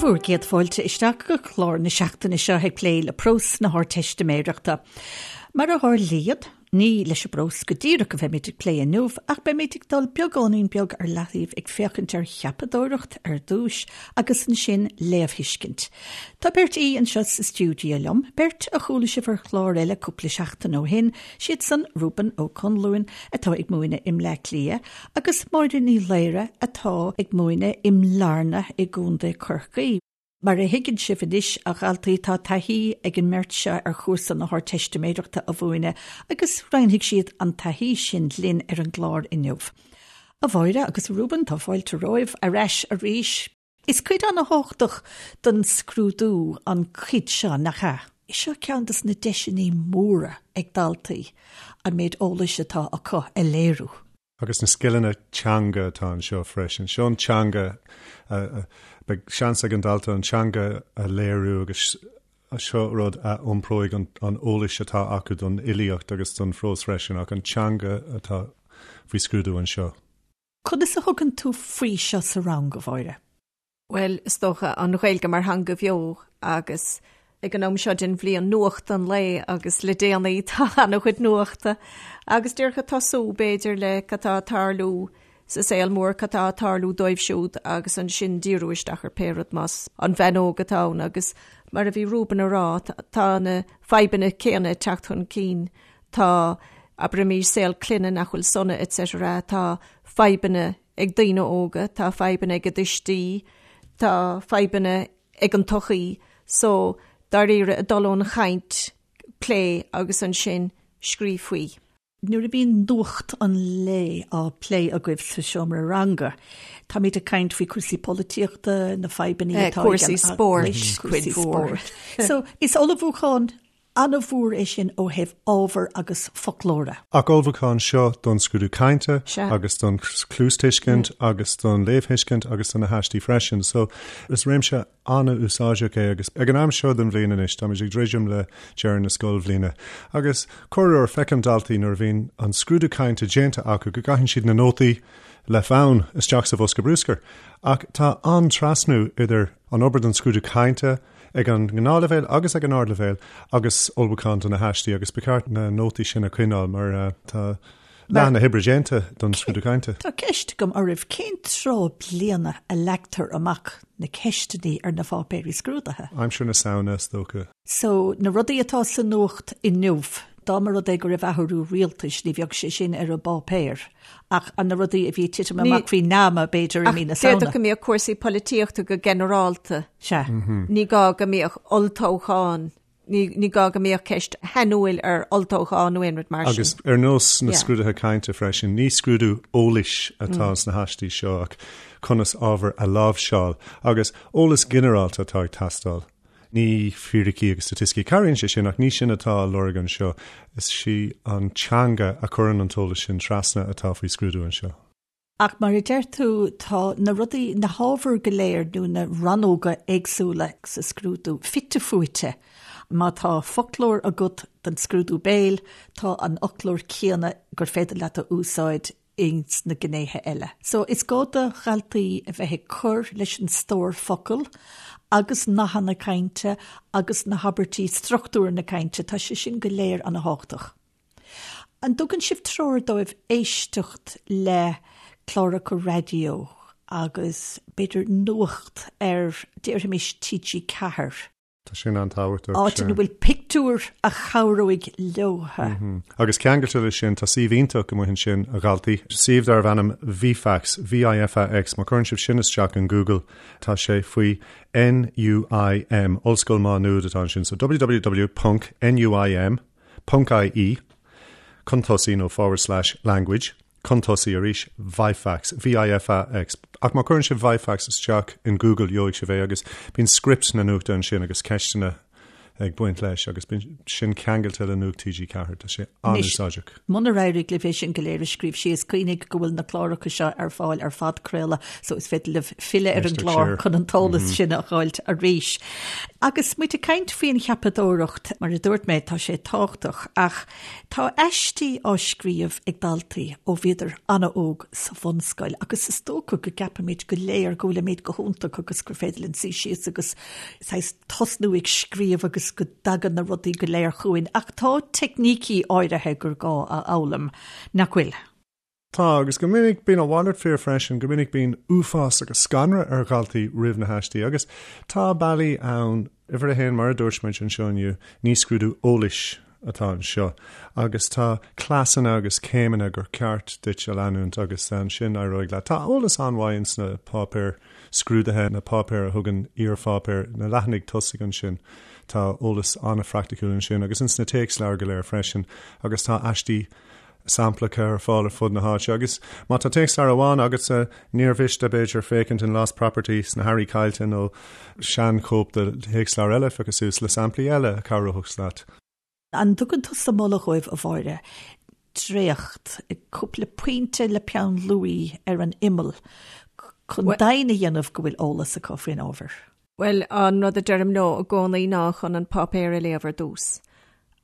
Bhur gcéad fáilte isteach go clár na seachtaine seo ag plé le prós na hArdteistiméireachta. Mar a tharlaíonn, ní leis an bprós go díreach a bheimid ag plé inniu ach beimid ag dul beagáinín beag ar leataobh ag féachaint ar cheapadóireacht ar dtús agus ansin léamhthuiscint. Tá beirt aoi anseo sa stiúideo liom, beirt a chuala sibh ar chlár eile cúpla seachtain ó shin, siad san Reuben Ó Conluain atá ag múineadh i mBleá Cliath agus Máire Ní Laoire atá ag múineadh i mBlarna i gContae Chorcaí. Mar a thuigeann sibh anois, a dhaltaí, tá taithí ag an mbeirt seo ar chúrsa na hArdteistiméireachta a mhúineadh agus roinnfidh siad an taithí sin linn ar an gclár inniu. A Mháire agus a Reuben, tá fáilte romhaibh ar ais arís. Is cuid an-thábhachtach den scrúdú an chuid seo, nach ea? Seo ceann de na deiseanna móra ag daltaí an méid eolais atá acu a léiriú. Agus na scileanna teanga atá anseo freisin. Seo an teanga, beidh seans ag an dalta an teanga a léiriú agus seo rud a iompróidh an eolais atá acu don fhilíocht agus don phrós freisin ach an teanga atá faoi scrúdú anseo. Conas a thugann tú faoi seo sa rang, a Mháire? Bhuel, is dócha, an Ghaeilge mar theanga bheo agus ag an am seo den bhliain nuacht an lae agus le déanaí tá an-chuid nuachta agus díreach ag tosú b'fhéidir le cad tá ag tarlú sa saol mór, cad tá ag tarlú dóibh siúd agus ansin díriú isteach ar pé rud más an bhean óg atá ann agus mar a bhí Reuben a rá, tá na fadhbanna céanna ag teacht chun cinn Tá, abraimis, saol clainne nach bhfuil sona etc. Tá fadhbanna ag daoine óga, tá fadhbanna ag a dtuistí, tá fadhbanna ag an tsochaí. So, dáiríre, ag dul ón chaint, plé agus ansin scríobh faoi. Nuair a bhíonn nuacht an lae á plé agaibh sa seomra ranga, táimid ag caint faoi chúrsaí polaitíochta, na fadhbanna atá ag an Cúrsaí spóirt, cuid mhór. So, is ullmhúchán An-mhór é sin ó thaobh ábhair agus foclóra. Ach ullmhúchán seo don scrúdú cainte agus don chluastuiscint agus don léamhthuiscint agus do na haistí freisin. So is réimse an-úsáideach é agus ag an am seo den bhliain anois táimid ag druidim le deireadh na scoilbhliana agus corruair feicim daltaí nuair a bhíonn an scrúdú cainte déanta acu go gcaitheann siad na nótaí le fonn isteach sa bhosca bruscair. Ach tá an-trasnú idir an obair don scrúdú cainte, ag an ngnáthleibhéal agus ag an ardleibhéal agus ullmhúchán do na haistí agus ba cheart na nótaí sin a choinneáil mar tá leath na hoibre déanta don scrúdú cainte. Tá ceist agam oraibh, cén tráth bliana a leagtar amach na ceisteanna ar na pháipéirí scrúdaithe? Aimsir na Samhna, is dócha. So, na rudaí atá sa nuacht inniu, dá mba rud é go raibh athrú rialtais, ní bheadh sé sin ar an bpáipéar. Ach na rudaí a bhí ag titim amach faoi nama, b'fhéidir, i mí na Samhna. D'fhéadfadh go mbeadh cúrsaí polaitíochta go ginearálta. Sea. Ní gá go mbeadh olltoghchán, ní gá go mbeadh ceist shainiúil ar olltoghchán nó aon rud mar sin. Agus ar nós na scrúduithe cainte freisin, ní scrúdú eolais atá sna haistí seo ach conas ábhar a láimhseáil agus eolas ginearálta atá ag teastáil. Ní fíricí agus staitisticí. Cabhraíonn sé sin ach ní sin atá á lorg anseo. Is í an teanga a chuireann an t-eolas sin trasna atá faoi scrúdú anseo. Ach mar a deir tú, tá na rudaí, na hábhair go léir nó na rannóga éagsúla sa scrúdú fite fuaite. Má tá foclóir agat don scrúdú béil, tá an foclóir céanna gur féidir leat a úsáid ins na gnéithe eile. So is gá do dhaltaí a bheith ag cur leis an stór focal agus nathanna cainte agus na habairtí, struchtúr na cainte, tá sé sin go léir ana thábhachtach. An dtugann sibh treoir dóibh éisteacht le cláracha raidió agus b'fhéidir nuacht ar, déarfaimis, TG4? Tá sin an-tábhachtach. Áit ina bhfuil pictiúir a chabhróidh leotha. Agus ceangailte leis sin, tá suíomh iontach amuigh ansin, a dhaltaí, suíomh darbh ainm VIFAX, V-I-F-A-X, má chuireann sibh sin isteach in Google, tá sé faoi NUIM, Ollscoil Mhá Nuad atá ansin, so www ponc NUIM ponc IE, chun tosaigh nó forward slash language. Chun tosaigh arís, VIFAX, V-I-F-A-X. Ach má chuireann sibh VIFAX isteach in Google gheobhaidh sibh é agus bíonn script na nuachta ansin agus ceisteanna ag baint leis agus bíonn sin ceangailte le Nuacht TG4. Tá sé an-úsáideach. Munar éirigh libh é sin go léir a scríobh síos, cuimhnigh go bhfuil na cláracha seo ar fáil ar phodchraoladh so is féidir libh filleadh ar an gclár chun an t-eolas sin a fháilt arís. Agus muid ag caint faoin cheapadóireacht, mar a dúirt mé, tá sé tábhachtach ach tá aistí á scríobh ag daltaí ó bhíodar an-óg sa bhunscoil agus is dócha go gceapaimid go léir go bhfuilimid go hiontach agus gur féidir linn suí síos agus saghas tosnú ag scríobh agus go dtagann na rudaí go léir chugainn, ach tá teicnící áirithe gur gá a fhoghlaim, nach bhfuil? Tá, agus go minic bíonn a mhalairt fíor freisin, go minic bíonn uafás agus scanradh ar dhaltaí roimh na haistí, agus tá bealaí ann, uimhir a haon, mar a dúirt muid anseo inniu, ní scrúdú eolais atá anseo, agus tá cleasanna agus céimeanna gur ceart duit a leanúint agus ansin éireoidh leat. Tá eolas an-mhaith ins na páipéir scrúdaithe, na páipéir a thugann iarpháipéir, na leathanaigh tosaigh ansin. Tá eolas an-phraiticiúil ansin agus ins na téacsleabhair go léir freisin agus tá aistí samplacha ar fáil ar fud na háite agus má tá téacsleabhar amháin agatsa níor mhiste b'fhéidir féachaint in Lost Property sna hearraí caillte nó seanchóip de théacsleabhar eile a phiocadh suas le samplaí eile a chabhródh leat. An dtugann tusa moladh dhóibh, a Mháire, dréacht, cúpla pointe le peann luaí ar an imeall chun deimhin a dhéanamh go bhfuil eolas acu faoin ábhar? Bhuel, an rud a deirim leo i gcónaí ná chun an páipéar a léamh ar dtús,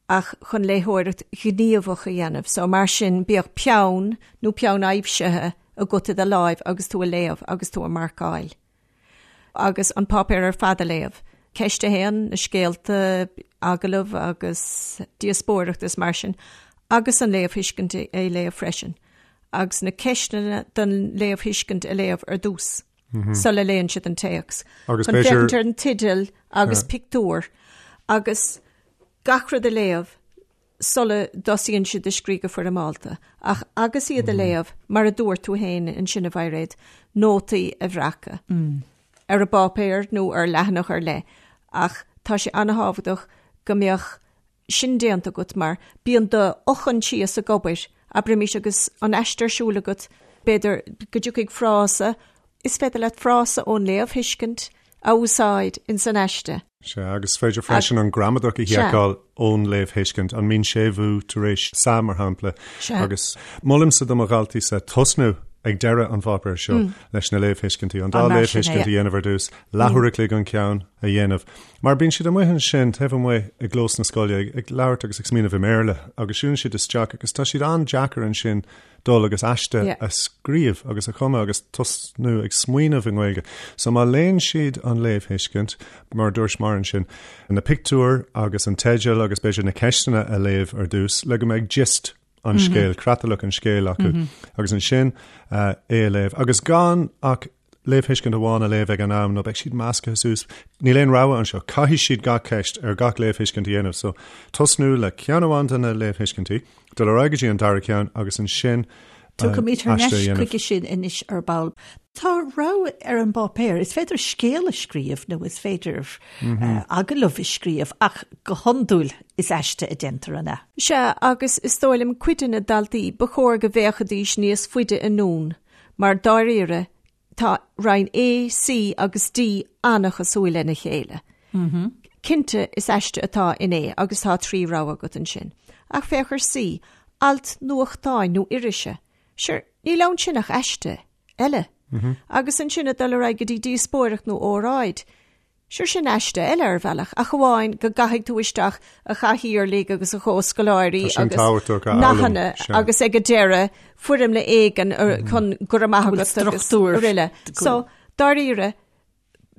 ach chun léitheoireacht ghníomhach a dhéanamh. So mar sin, bíodh peann nó peann aibhsithe agat i do láimh agus tú ag léamh agus tú ag marcáil. Agus an páipéar ar fad a léamh. Ceist a haon, na scéalta, agallamh agus díospóireacht is mar sin, agus an léamhthuiscint a léamh freisin. Agus na ceisteanna don léamhthuiscint a léamh ar dtús. sula léann siad an téacs. Agus Chun féachaint ar an teideal agus pictiúr agus gach rud a léamh sula dtosaíonn siad ag scríobh go foirmeálta. Ach agus iad a léamh, mar a dúirt tú féin ansin a Mhairéad, nótaí a bhreacadh ar an bpáipéar nó ar leathanach ar leith. Ach tá sé an-thábhachtach go mbeadh sin déanta agat mar bíonn do fhochoinsias ag obair, abraimis agus an aiste ar siúl agat, b'fhéidir go dtiocfaidh frása, is féidir leat frása ón léamhthuiscint a úsáid ins an aiste. Sea, agus is féidir freisin an gramadach a sheiceáil ón léamhthuiscint, an mbíonn séimhiú tar éis sa, mar shampla. Sea. Agus molaimse do mo dhaltaí-sa tosnú ag deireadh an pháipéir seo leis na léamhthuiscintí, an dá léamhthuiscint a dhéanamh ar dtús, leathuair a chloig an ceann a dhéanamh. Mar bíonn siad amuigh ansin, taobh amuigh i gclós na scoile, ag labhairt agus ag smaoineamh i mBéarla agus siúlann siad isteach agus tá siad an-deacair ansin dul agus aiste a scríobh agus a chumadh agus tosnú ag smaoineamh i nGaeilge. So má léann siad an léamhthuiscint, mar a dúirt Máire ansin, na pictiúir agus an teideal agus b'fhéidir na ceisteanna a léamh ar dtús le go mbeidh gist an scéil, creatlach an scéil acu agus ansin é a léamh agus gan ach léamhthuiscint amháin a léamh ag an am nó beidh siad measctha suas. Níl aon rogha anseo, caithfidh siad gach ceist ar gach léamhthuiscint a dhéanamh. So, tosnú le ceann amháin de na léamhthuiscintí, dul ar aghaidh go dtí an dara ceann agus ansin Tiocfaimid thar n-ais chuige sin anois ar ball. Tá rogha ar an bpáipéar, is féidir scéal a scríobh nó is féidir agallamh a scríobh ach go hiondúil is aiste a déantar, an ea? Sea, agus is dóigh liom cuid de na daltaí, ba chóir go bhféachfaidís níos faide anonn Mar dáiríre, tá roinn A, C agus D an-chosúil lena chéile. Cinnte, is aiste atá in A agus tá 3 rogha agat ansin. Ach féach ar C, alt nuachtáin nó irise. Sure, níl ann sin ach aiste eile. Agus ansin ag dul ar aghaidh go dtí díospóireacht nó óráid. Sure sin aiste eile ar bhealach, ach amháin go gcaithfidh tú isteach a chathaoirligh agus a chomhscoláirí agus nathanna agus ag an deireadh foirmle éigin chun go raibh maith agat agus araile. So, dáiríre,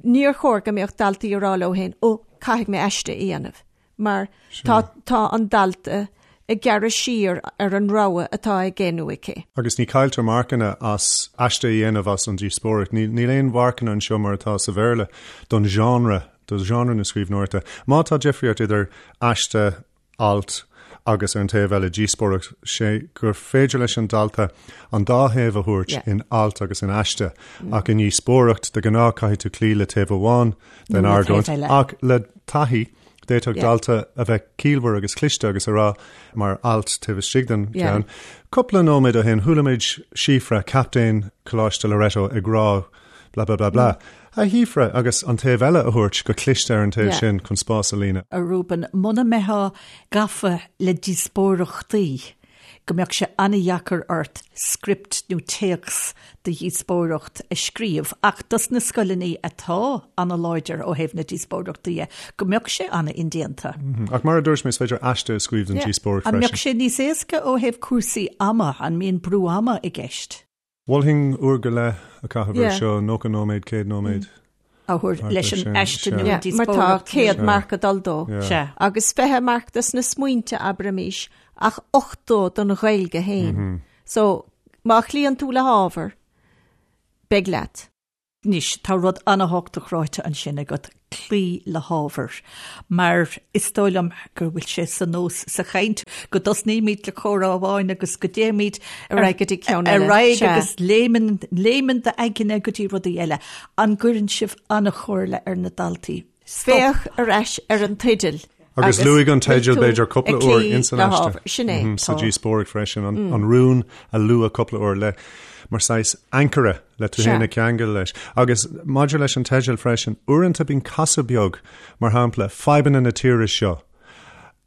níor chóir go mbeadh daltaí ag rá leo féin, ó, caithfidh mé aiste a dhéanamh. mar tá tá an dalta ag gearradh siar ar an rogha atá aige nó aici. Agus ní cailltear marcanna as aiste a dhéanamh as an díospóireacht. Níl aon mharcanna anseo mar atá sa Bhéarla don genre, do genre na scríbhneoireachta. Má tá difríocht idir aiste, alt agus ar an taobh eile díospóireacht, sé gur féidir leis an dalta an dá thaobh a thabhairt in alt agus in aiste ach i ndíospóireacht de ghnáth caithfidh tú cloí le taobh amháin den argóint ach le taithí d'fhéadfadh dalta a bheith ciallmhar agus cliste agus a rá mar alt taobh istigh den cheann. Cúpla nóiméad ó shin chuala muid Síofra, captaen Choláiste Loreto ag rá blah blah blah blah. A Shíofra, agus an taobh eile a thabhairt go cliste ar an taobh sin chun spás a líonadh. A Reuben, muna mbeifeá gafa le díospóireachtaí, go mbeadh sé an-dheacair ort script nó téacs do dhíospóireacht a scríobh, ach dos na scoileanna atá an-láidir ó thaobh na díospóireachtaí dhe, go mbeadh sé an-indéanta. Ach mar a dúirt mé, is féidir aiste a scríobh don díospóireacht freisin. An mbeadh sé níos éasca ó thaobh cúrsaí ama? An mbíonn brú ama i gceist? Mholfainn uair go leith a chaitheamh air seo, 90 nóiméad, 100 nóiméad. A thabhairt leis an aiste nó an díospóireacht. Mar tá 100 marc ag dul dó. Agus 20 marc dos na smaointe, abraimis, ach 80 don Ghaeilge féin. So, má chloíonn tú le hábhar, beidh leat. Anois, tá rud an-thábhachtach ráite ansin agat, cloí le hábhar. Mar is dóigh liom go bhfuil sé sa nós sa chaint go dtosnaímid le comhrá amháin agus go dtéimid ar aghaidh go dtí ceann eile. Ar aghaidh agus léimeann, léimeann d'aigne go dtí rudaí eile. An gcuireann sibh an-chomhairle ar na daltaí? Stop. Féach ar ais ar an teideal. Agus luaigh an teideal b'fhéidir cúpla uair ins an aiste. Sin é. Sa díospóireacht freisin, an rún a lua cúpla uair le mar saghas ancaire le tú féin a cheangal leis. Agus maidir leis an teideal freisin, uaireanta bíonn casadh beag, mar shampla, fadhbanna na tíre seo.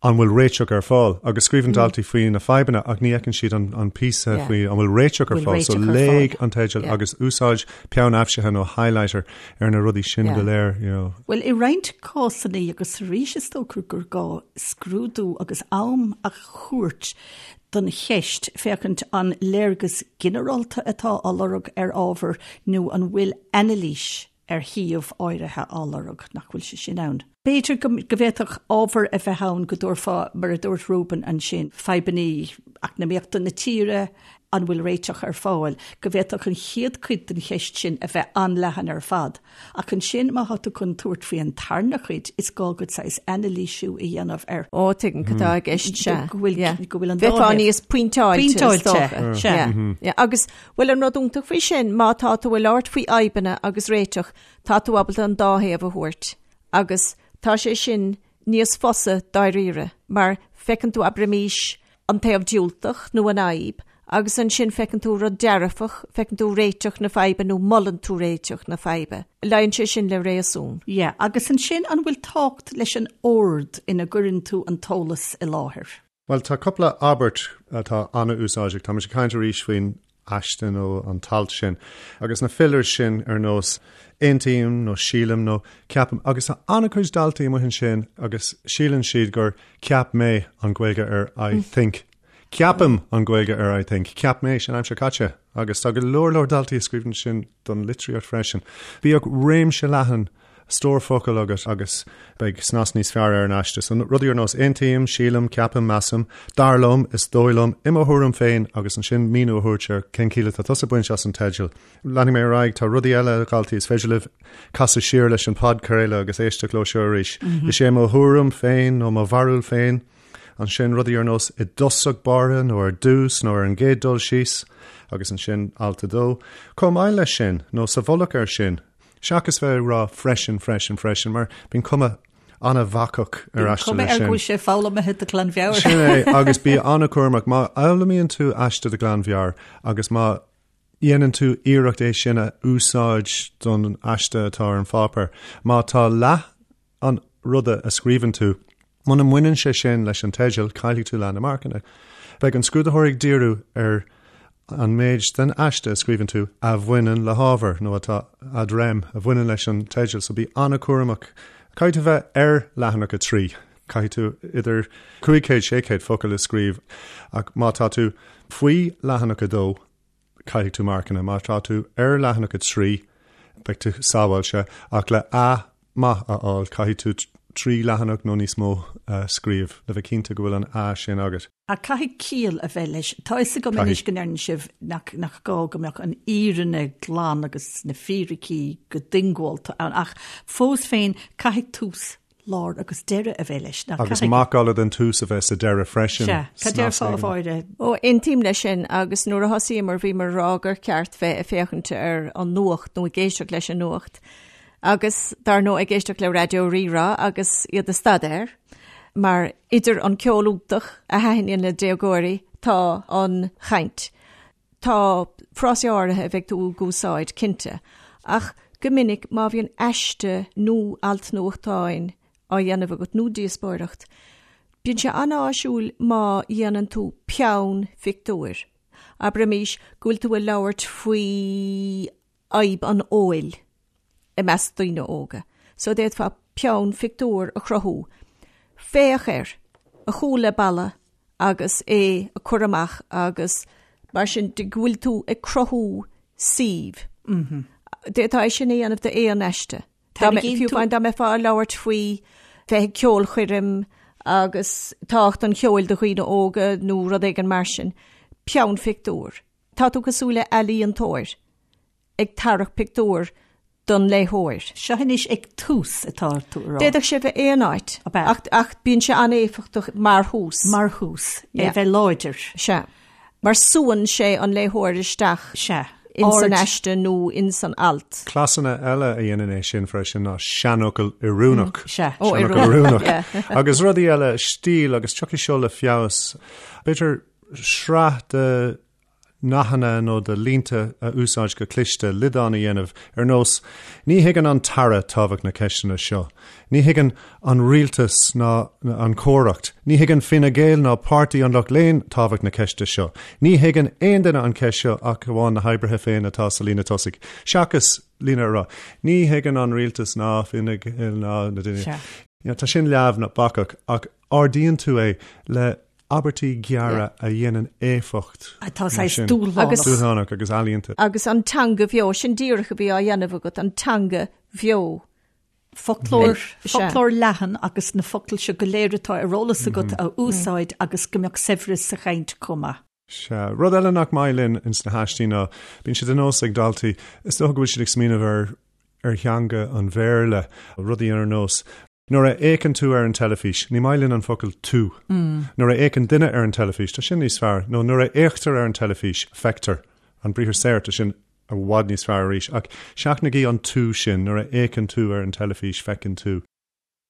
an bhfuil réiteach ar fáil? Agus scríobhann daltaí faoi na fadhbanna ach ní fheiceann siad an píosa faoi an bhfuil réiteach ar fáil. So léigh an teideal agus úsáid peann aibhsithe nó highlighter ar na rudaí sin go léir. You know. Bhuel, i roinnt cásanna agus arís is dócha gur gá scrúdú agus am a thabhairt don cheist féachaint an léargas ginearálta atá á lorg ar ábhar nó an bhfuil anailís ar shuíomh áirithe á lorg, nach bhfuil sé sin ann. B'fhéidir go bhféadfadh ábhar a bheith ann go dtabharfá, mar a dúirt Reuben ansin, fadhbanna eacnamaíochta na tíre, an bhfuil réiteach ar fáil, go bhféadfadh an chéad chuid den cheist sin a bheith an-leathan ar fad. Ach ansin má tá tú chun tabhairt faoi an tarna cuid, is gá duit saghas anailísiú a dhéanamh ar. Ó, tuigim cad atá i gceist, sea. Go bhfuil, go bhfuil an dá Bheifeá níos pointeáilte, is dócha. Sea. Yeah. Agus Bhuel an rud iontach faoi sin, má tá tú ag labhairt faoi fhadhbanna agus réiteach, tá tú ábalta an dá thaobh a thabhairt agus tá sé sin níos fusa dáiríre mar feiceann tú abraimís an taobh diúltach nó an fhadhb agus ansin feiceann tú rud dearfach, feiceann tú réiteach na faidhbe nó molann tú réiteach na faidhbe. Luíonn sé sin le réasún. Yeah, agus ansin an bhfuil tábhacht leis an ord ina gcuireann tú an t-eolas i láthair? Bhuel, tá cúpla abairt atá an-úsáideach. Tá muid ag caint arís faoin aiste nó an t-alt sin. Agus na fillers sin ar nós aontaím nó sílim nó ceapaim. Agus tá an-chuid daltaí amuigh ansin agus síleann siad gur ceap mé an Ghaeilge ar I think. Ceapaim an Ghaeilge ar I think. Ceap mé, sin aimsir caite. Agus tá go leor leor daltaí a scríobhann sin don litríocht freisin. Bíodh réimse leathan stór focal agat agus beidh snas níos fearr ar an aiste. So rudaí ar nós aontaím, sílim, ceapaim, measaim, dar liom, is dóigh liom, i mo thuairim féin agus ansin míniú a thabhairt ar cén chiall atá tusa ag baint as an teideal. Leanfaidh mé ar aghaidh, tá rudaí eile, a dhaltaí, is féidir libh casadh siar leis an podchraoladh agus éisteacht leo seo arís. Is é mo thuairim féin nó mo bharúil féin, ansin rudaí ar nós i dtosach báire nó ar dtús nó ar an gcéad dul síos agus ansin alt 2. Chomh maith leis sin, nó sa mhullach air sin, Seachas bheith ag rá freisin, freisin, freisin, mar bíonn cuma an-bhacach ar aiste leis sin. Cuma air go bhfuil sé foghlamtha de ghlanmheabhair. Sin é, agus bí an-chúramach. Má fhoghlaimíonn tú aiste de ghlanmheabhair agus má dhéanann tú iarracht é sin a úsáid don aiste atá ar an pháipéar, má tá leath an ruda a scríobhann tú. Muna mbaineann sé sin leis an teideal, caillfidh tú leath na marcanna. Beidh an scrúdaitheoir ag díriú ar an méid den aiste a scríobhann tú a bhaineann le hábhar, nó atá ad rem, a bhaineann leis an teideal, so bí an-chúramach. Caithfidh tú bheith ar leathanach 3. Caithfidh tú idir 500, 600 focal a scríobh, ach má tá tú faoi leathanach 2, caillfidh tú marcanna. Má tá tú ar leathanach 3, beidh tú sábháilte, ach le A maith a fháil, caithfidh tú 3 leathanach nó níos mó a scríobh le bheith cinnte go bhfuil an A sin agat. Ach caithfidh ciall a bheith leis. Tá fhios agam anois go ndeireann sibh nach nach gá go mbeadh an fhírinne glan agus na fíricí go diongbháilte ann, ach fós féin caithfidh tús lár agus deireadh a bheith leis. Nach Agus macalla den tús a bheith sa deireadh freisin. Sea, cad déarfá a Mháire? Ó, aontaím leis sin agus nuair a thosaíomar bhíomar ag rá gur ceart bheith ag féachaint ar an nuacht nó ag éisteacht leis an nuacht agus dar ndóigh ag éisteacht le Raidió Rí-Rá agus iad ag staidéar mar idir an ceol iontach a thaitníonn le déagóirí tá an chaint. Tá frásaí áirithe a bheidh tú ag úsáid, cinnte, ach go. Go minic má bhíonn aiste nó alt nuachtáin á dhéanamh agat nó díospóireacht, bíonn sé an-áisiúil má dhéanann tú peann phictiúir. Abraimis go bhfuil tú ag labhairt faoi fhadhb an óil i measc daoine óga. So d'fhéadfá peann phictiúr a chruthú. Féach air, a chúl le balla agus é a cur amach agus mar sin de go bhfuil tú ag cruthú suímh. D'fhéadfá é sin a dhéanamh d'aon aiste. Fiú amháin dá mbeifeá ag labhairt faoi bheith ag ceolchoirm agus tábhacht an cheoil do dhaoine óga nó rud éigin mar sin, peann phictiúr. Tá tú cosúil le ealaíontóir ag tarrac pictiúr don léitheoir. Seo anois ag tús atá tú a rá. D'fhéadfadh sé bheith aon áit, ach, ach bíonn sé an-éifeachtach mar thús. Mar thús, é bheith láidir. Sea. Mar súann sé an léitheoir isteach. Sea. ins an aiste nó ins an alt. Cleasanna eile a dhéanann é sin freisin ná seanfhocal oiriúnach. Sea. Ó, Seanfhocal oiriúnach. Agus rudaí eile, stíl agus tiocfaidh seo le feabhas. B'fhéidir sraith de nathanna nó de línte a úsáid go cliste, liodán a dhéanamh, ar nós, Ní thuigeann an tAire tábhacht na ceisteanna seo. Ní thuigeann an rialtas ná an chomhaireacht. Ní thuigeann Fine Gael ná Páirtí an Lucht Léinn tábhacht na ceiste seo. Ní thuigeann aon duine an cheist seo ach amháin na hoibrithe féin atá sa líne tosaigh. Seachas líne a rá, Ní thuigeann an rialtas ná Fine Gael ná na daoine. Tá sin leamh nó bacach ach ardaíonn tú é le abairtí gearra a dhéanann éifeacht. Atá saghas dúshlánach. Dúshlánach agus ealaíonta. Agus an teanga bheo, sin díreach a bhí á dhéanamh agat, an teanga bheo. Foclóir, foclóir leathan agus na focail seo go léir atá ar eolas agat a úsáid agus go mbeadh saibhreas sa chaint chomh maith. Sea. Rud eile nach maith linn ins na haistí ná, bíonn sé de nós ag daltaí, is dócha go bhfuil siad ag smaoineamh ar ar theanga an Bhéarla, rudaí ar nós, Nuair a fhéachann tú ar an teilifís, ní maith linn an focal 'tú'. Nuair a fhéachann duine ar an teilifís, tá sin níos fearr, nó nuair a fhéachtar ar an teilifís, feictear. An briathar saor, tá sin i bhfad níos fearr arís. Ach seachnaigí an 'tú' sin, nuair a fhéachann tú ar an teilifís, feiceann tú.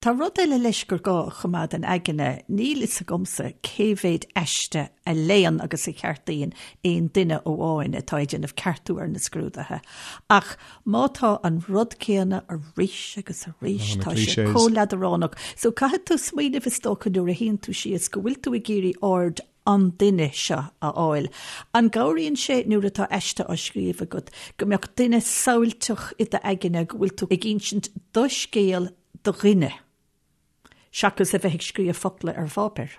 Tá rud eile leis gur gá a choimeád in aigne, níl fhios agamsa cé mhéid aiste a léann agus a cheartaíonn aon duine amháin atá ag déanamh ceartú ar na scrúduithe, ach má tá an rud céanna arís agus arís, tá sé chomh leadránach. So caithfidh tú smaoineamh is dócha nuair a shuíonn tú síos go bhfuil tú ag iarraidh aird an duine seo a fháil. An gcabhraíonn sé nuair atá aiste á scríobh agat go mbeadh duine samhailteach i d'aigne go bhfuil tú ag insint do scéal do dhuine, seachas a bheith ag scríobh focla ar pháipéar?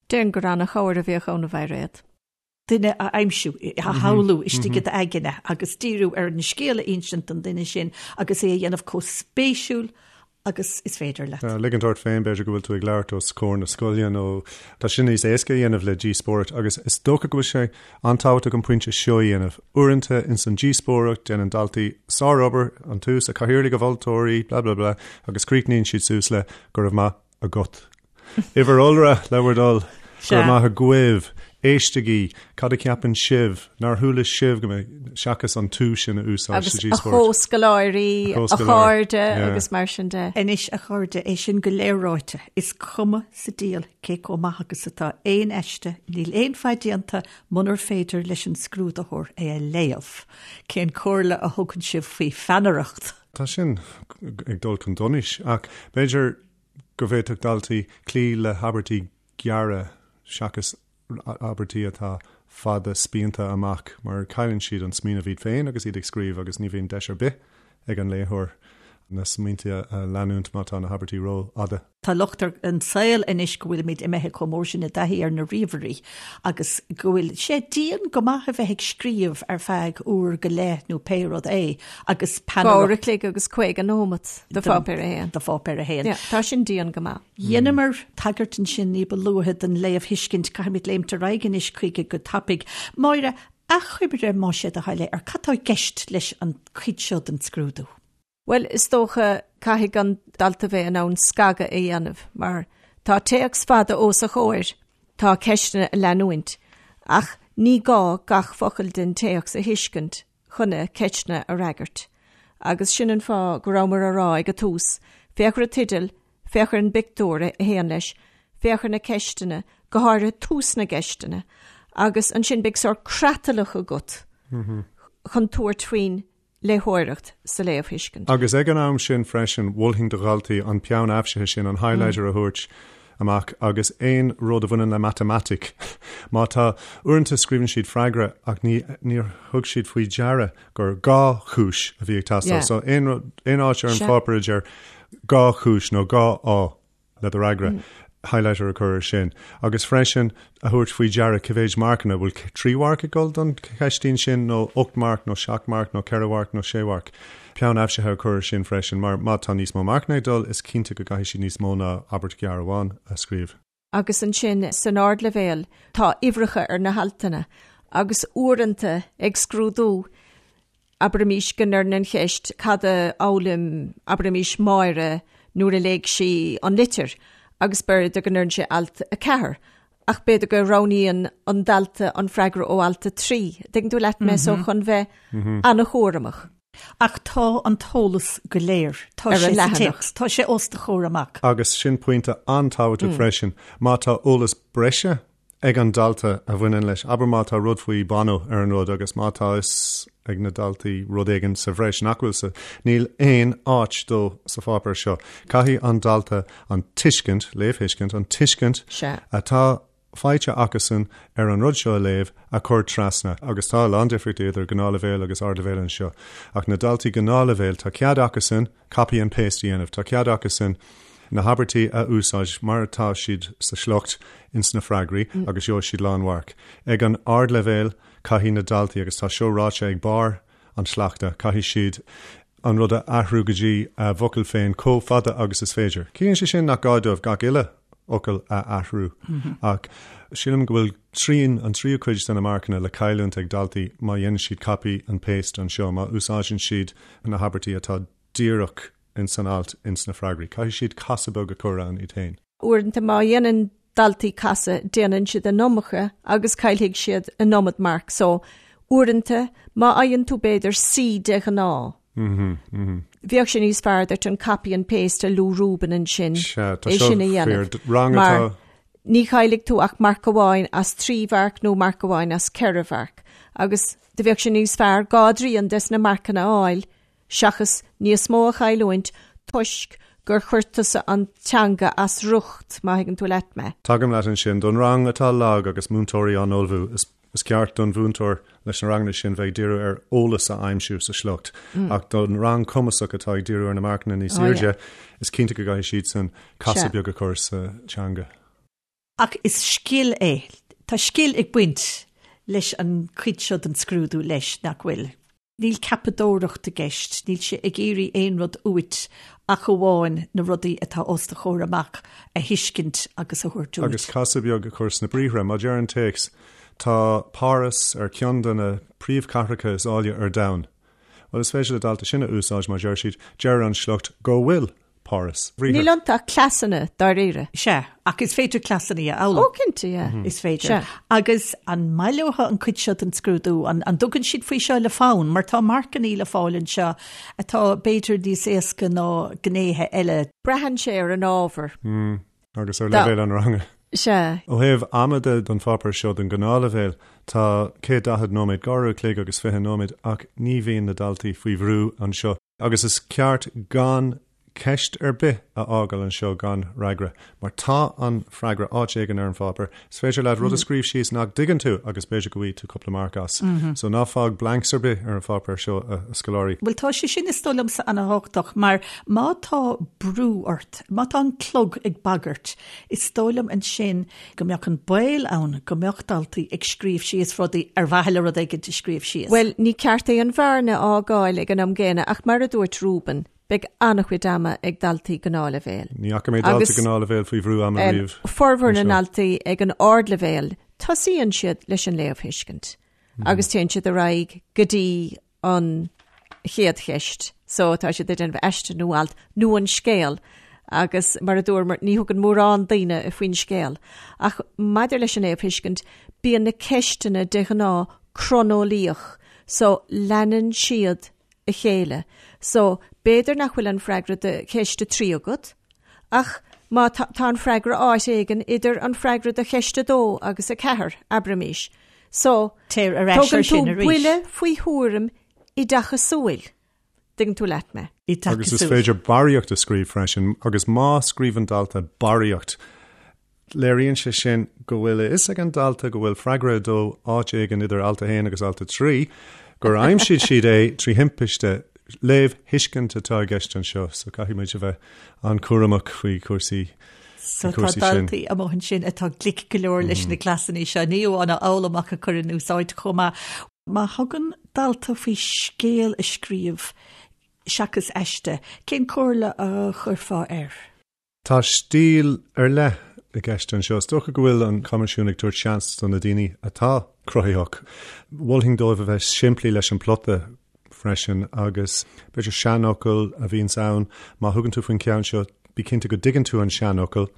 Déarfainn gur ana-chabhair a bheadh ann a Mhairéad. duine a aimsiú, a shamhlú istigh i d'aigne agus díriú ar an scéal a insint don duine sin agus é a dhéanamh chomh spéisiúil agus is féidir leat. Ligint ort féin, b'fhéidir go bhfuil tú ag labhairt os comhair na scoile nó tá sin níos éasca a dhéanamh le díospóireacht agus is dócha go bhfuil sé an-tábhachtach an pointe seo a dhéanamh. Uaireanta ins an díospóireacht déanann daltaí sárobair, an tús, a chathaoirligh, a mholtóirí, blah blah blah agus críochnaíonn siad suas le go raibh maith agat. Uimhir iolra le bhur dtoil. Go raibh maith agaibh. Éistigí. Cad a cheapann sibh? Nár chuala sibh go mbeidh, seachas an tú sin a úsáid sa díospóireacht. Agus a chomhscoláirí, a chairde agus mar sin de. Anois, a chairde, é sin go léir ráite, is cuma sa diabhal cé chomh maith agus atá aon aiste, níl aon mhaith déanta munar féidir leis an scrúdaitheoir é a léamh. Cén comhairle a thugann sibh faoi pheannaireacht? Tá sin ag dul chun donais, ach b'fhéidir go bhféadfadh daltaí cloí le habairtí gearra seachas abairtí atá fada spíonta amach mar cailleann siad an smaoineamh iad féin agus iad ag scríobh agus ní bhíonn deis ar bith ag an léitheoir na smaointe a leanúint má tá na habairtí rófhada. Tá locht ar an saol anois go bhfuilimid imithe chomh mór sin i dtaithí ar na ríomhairí agus go bhfuil sé dian go maith a bheith ag scríobh ar feadh uair go leith nó pé rud é agus peannaireacht. Uair a chloig agus 50 nóimeat do pháipéar a haon. Do pháipéar a haon. Yeah, tá sin dian go maith. Dheineamar tagairt ansin ní ba luaithe don léamhthuiscint, caithfimid léimt ar aghaidh anois chuige go tapaidh. Máire, achoimre más é do thoil é ar cad tá i gceist leis an chuid seo den scrúdú? Bhuel, is dócha, caithfidh an dalta bheith in ann scagadh a dhéanamh, mar tá téacs fada os a chomhair, tá ceisteanna a leanúint, ach ní gá gach focal den téacs a thuiscint chun na ceisteanna a fhreagairt. Agus sin an fáth go rabhamar á rá ag an tús, féach ar an teideal, féach ar an bpictiúr a théann leis, féach ar na ceisteanna, go háirithe tús na gceisteanna, agus ansin beidh sórt creatlach agat chun tabhairt faoin. léitheoireacht, sa léamhthuiscint. Agus ag an am sin freisin, mholfainn do dhaltaí an peann aibhsithe sin, an highlighter a thabhairt amach agus aon rud a bhaineann le matamaitic. Má tá, uaireanta scríobhann siad freagra ach ní, níor thug siad faoi deara gur 2 chúis a bhí ag teastáil. So aon rud, aon áit ar an pháipéar a deir 2 chúis nó 2 fháth. le do fhreagra, highlighter a chur ar sin, agus freisin a thabhairt faoi deara cé mhéid marcanna, bhfuil 3 mharc ag dul don cheistín sin nó 8 marc nó 7 marc nó 4 mharc nó 6 mharc. Peann aibhsithe a chur ar sin freisin mar má tá níos mó marcanna ag dul is cinnte go gcaithfidh siad níos mó ná abairt ghearr amháin a scríobh. Agus ansin san ardleibhéal tá uimhreacha ar na haltanna agus uaireanta ag scrúdú Abraimis go ndeireann an cheist cad a fhoghlaim, abraimis, Máire nuair a léigh sí an litir agus b'fhéidir go ndeireann sé alt 4 ach b'fhéidir go roghnaíonn an dalta an freagra ó alt 3. Tuigeann tú leat mé so chun bheith an-chúramach. Ach tá an t-eolas go léir. Tá sé sa téacs. Tá sé os do chomhair amach. Agus sin pointe an-tábhachtach freisin. Má tá eolas breise ag an dalta a bhaineann leis. Abair má tá rud faoi Bono ar an rud agus má tá fhios ag na daltaí rud éigin sa bhreis nach bhfuil sa, níl aon áit dó sa pháipéar seo. Caithfidh an dalta an tuiscint, léamhthuiscint, an tuiscint atá faighte acusan ar an rud seo a léamh a chur trasna. Agus tá a lán difríochtaí idir gnáthleibhéal agus ardleibhéal anseo. Ach na daltaí gnáthleibhéil, tá cead acusan, copy and paste a dhéanamh. Tá cead acusan na habairtí a úsáid mar atá siad sa sliocht ins na freagraí agus gheobhaidh siad lánmharc. Ag an ardleibhéal caithfidh na daltaí, agus tá seo ráite ag barr an tsleachta, caithfidh siad an rud a athrú go dtí a bhfocail féin chomh fada agus is féidir. Ciallaíonn sé sin nach gá dóibh gach uile fhocal a athrú ach sílim go bhfuil trian, an tríú cuid de na marcanna le cailliúint ag daltaí má dhéanann siad copy and paste anseo, má úsáideann siad na habairtí atá díreach ins an alt ins na freagraí. Caithfidh siad casadh beag a chur ann iad féin. Uaireanta má dhéanann daltaí casadh, déanann siad an iomarca agus caillfidh siad an iomad marc. So, uaireanta, má fhaigheann tú b'fhéidir C de ghnáth, bheadh sé níos fearr duit an copy and paste a luaigh Reuben ansin, é sin a dhéanamh. Rang atá. Ní chaillfidh tú ach marc amháin as 3 mharc nó marc amháin as 4 mharc. Agus do bheadh sé níos fearr dhá dtrian des na marcanna a fháil seachas níos mó a chailliúint toisc gur chuir tusa an teanga as riocht, má thuigeann tú leat mé. Tagaim leat ansin. Don rang atá lag agus múinteoirí á n-ullmhú, is Is ceart don mhúinteoir leis na ranganna sin bheith ag díriú ar eolas a aimsiú sa sliocht, ach don rang cumasach atá ag díriú ar na marcanna níos airde, is cinnte go gcaithfidh siadsan casadh beag a chur sa teanga. Ach is scil é. Tá scil ag baint leis an chuid seo den scrúdú leis, nach bhfuil? Níl ceapadóireacht i gceist, níl sé ag iarraidh aon rud uait ach amháin na rudaí atá os do chomhair amach a thuiscint agus a thabhairt uait. Agus casadh beag a chur sna briathra. Má deir an téacs, Tá Páras ar ceann de na príomhchathracha is áille ar domhan. Bhuel, is féidir le dalta sin a úsáid má deir siad, Deir an sliocht go bhfuil Páras. Níl iontu ach cleasanna, dáiríre. Sea, ach is féidir cleasanna a fhoghlaim. Ó, cinnte, yeah. Is féidir. Sea. Agus an maith leo an cuid seo den scrúdú? An dtugann siad faoi seo le fonn? Mar tá marcannaí le fáil anseo atá b'fhéidir níos éasca ná gnéithe eile. Braitheann sé ar an ábhar. Agus ar leibhéal an ranga. Sea. Ó thaobh ama de don pháipéar seo don ghnáthleibhéal, tá 140 nóiméad, 2 uair a chloig agus 20 nóiméad, ach ní bhíonn na daltaí faoi bhrú anseo. Agus is ceart gan ceist ar bith a fhágáil anseo gan fhreagra, mar tá an freagra áit éigin ar an pháipéar. Is féidir leat rud a scríobh síos nach dtuigeann tú agus b'fhéidir go bhfaighidh tú cúpla marc as. So ná fág blanks ar bith ar an pháipéar seo, a scoláirí. Bhuel, tá sé sin is dóigh liomsa ana-thábhachtach, mar má tá brú ort, má tá an clog ag bagairt, is dóigh liom ansin go mbeadh an baol ann go mbeadh daltaí ag scríobh síos rudaí ar mhaithe le rud éigin a scríobh síos. Bhuel, ní ceart aon bhearna a fhágáil ag an am gcéanna ach mar a dúirt Reuben, beidh an-chuid ama ag daltaí gnáthleibhéil. Ní fhaca mé dalta gnáthleibhéil faoi bhrú ama riamh. Formhór na ndaltaí ag an ardleibhéal, tosaíonn siad leis an léamhthuiscint agus téann siad ar aghaidh go dtí an chéad cheist. So tá siad ag déanamh aiste nó alt nó an scéal agus mar a dúramar ní thugann mórán daoine faoin scéal. Ach maidir leis an léamhthuiscint, bíonn na ceisteanna de ghnáth croineolaíoch so leanann siad a chéile. So b'fhéidir nach bhfuil an freagra do cheist 3 agat ach má tá tá an freagra áit éigin idir an freagra do cheist 2 agus 4, abraimis. So, Téir ar ais ar sin arís. Tógann tú buille faoi thuairim oideachasúil. Dtuigeann tú leat mé? Agus is féidir barraíocht a scríobh freisin, agus má scríobhann dalta barraíocht, léiríonn sé sin go bhfuil a fhios ag an dalta go bhfuil freagra 2 áit éigin idir alt 1 agus alt 3, gur aimsigh siad é trí thimpiste. Léamhthuiscint atá i gceist anseo, so caithfidh muid a bheith an-chúramach faoi chúrsaí So tá daltaí amuigh ansin atá glic go leor leis na cleasanna seo, ní amháin a fhoghlaim ach a chur in úsáid chomh maith. Má thugann dalta faoi scéal a scríobh seachas aiste, cén comhairle a chuirfeá air? Tá stíl ar leith i gceist anseo. Is dócha go bhfuil an Coimisiún ag tabhairt seans do na daoine atá cruthaitheach. Mholfainn dóibh a bheith simplí leis an plota freisin agus b'fhéidir seanfhocal a bhíonns ann, má thugann tú faoin cheann seo, bí cinnte go dtuigeann tú an seanfhocal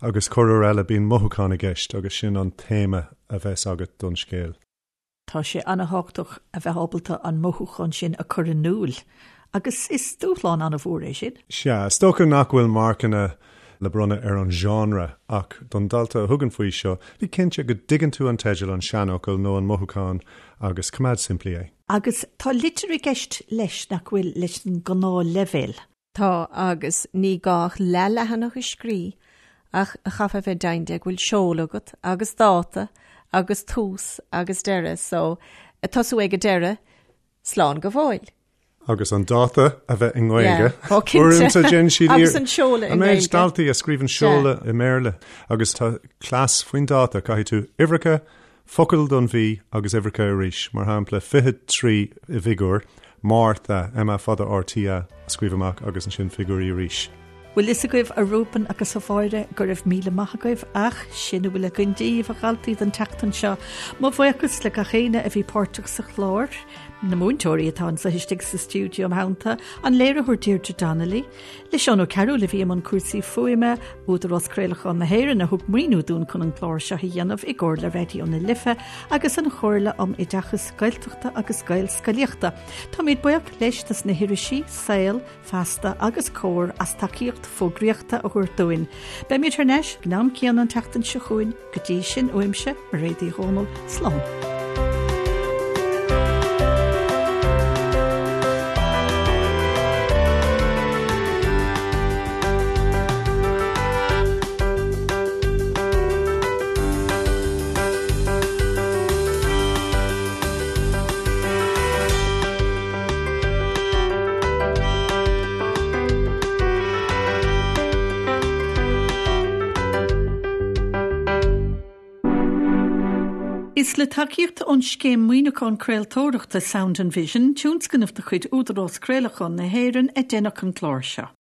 agus corruair eile bíonn mothúchán i gceist agus sin an téama a bheas agat don scéal. Tá sé an-thábhachtach a bheith ábalta an mothúchán sin a chur in iúl agus is dúshlán an-mhór é sin. Sea, is dócha nach bhfuil marcanna le bronnadh ar an genre ach don dalta a thugann faoi seo, bí cinnte go dtuigeann tú an teideal, an seanfhocal nó an mothúchán agus coimeád simplí é. Agus tá litir i gceist leis nach bhfuil leis an ngnáthleibhéal. Tá, agus ní gá ach leathleathanach a scrí ach chaithfeá bheith deimhin de go bhfuil seoladh agat agus dáta agus tús agus deireadh so tosú ag an deireadh, slán go fóill. Agus an dáta a bheith i nGaeilge. Yeah, ó cinnte. Uaireanta déanann siad Agus an seoladh i An méid nGaeilge. daltaí a scríobhann seoladh i mBéarla agus tá cleas faoin dáta, caithfidh tú uimhreacha, focal don mhí agus uimhreacha arís, mar shampla 23 i bhfigiúr, Márta, M A fada R T A, a scríobh amach agus ansin figiúirí arís. Bhfuil fhios agaibh, a Reuben agus a Mháire, go raibh míle maith agaibh ach sin a bhfuil againn daoibh, a dhaltaí, don tseachtain seo. Mo bhuíochas le gach éinne a bhí páirteach sa chlár, na múinteoirí atá anseo istigh sa stiúideo im theannta, an léiritheoir Deirdre Donnelly, Le Seán Ó Cearúil a bhí i mbun cúrsaí fuaime, Údarás Craolacháin na hÉireann a thug maoiniú dúinn chun an clár seo a dhéanamh i gcomhar le Raidió na Life agus an Chomhairle um Oideachas Gaeltachta agus Gaelscolaíochta. Táimid buíoch leis dos na hirisí, Saol, Feasta agus Comhar as tacaíocht fógraíochta a thabhairt dúinn. Beimid thar n-ais ag an am céanna an tseachtain seo chugainn. Go dtí sin, uaimse, Mairéad Uí Dhomhnaill, slán. Is le tacaíocht ón Scéim Maoiniúcháin Craoltóireachta Sound and Vision, tionscnamh de chuid Údarás Craolacháin na hÉireann, a deineadh an clár seo.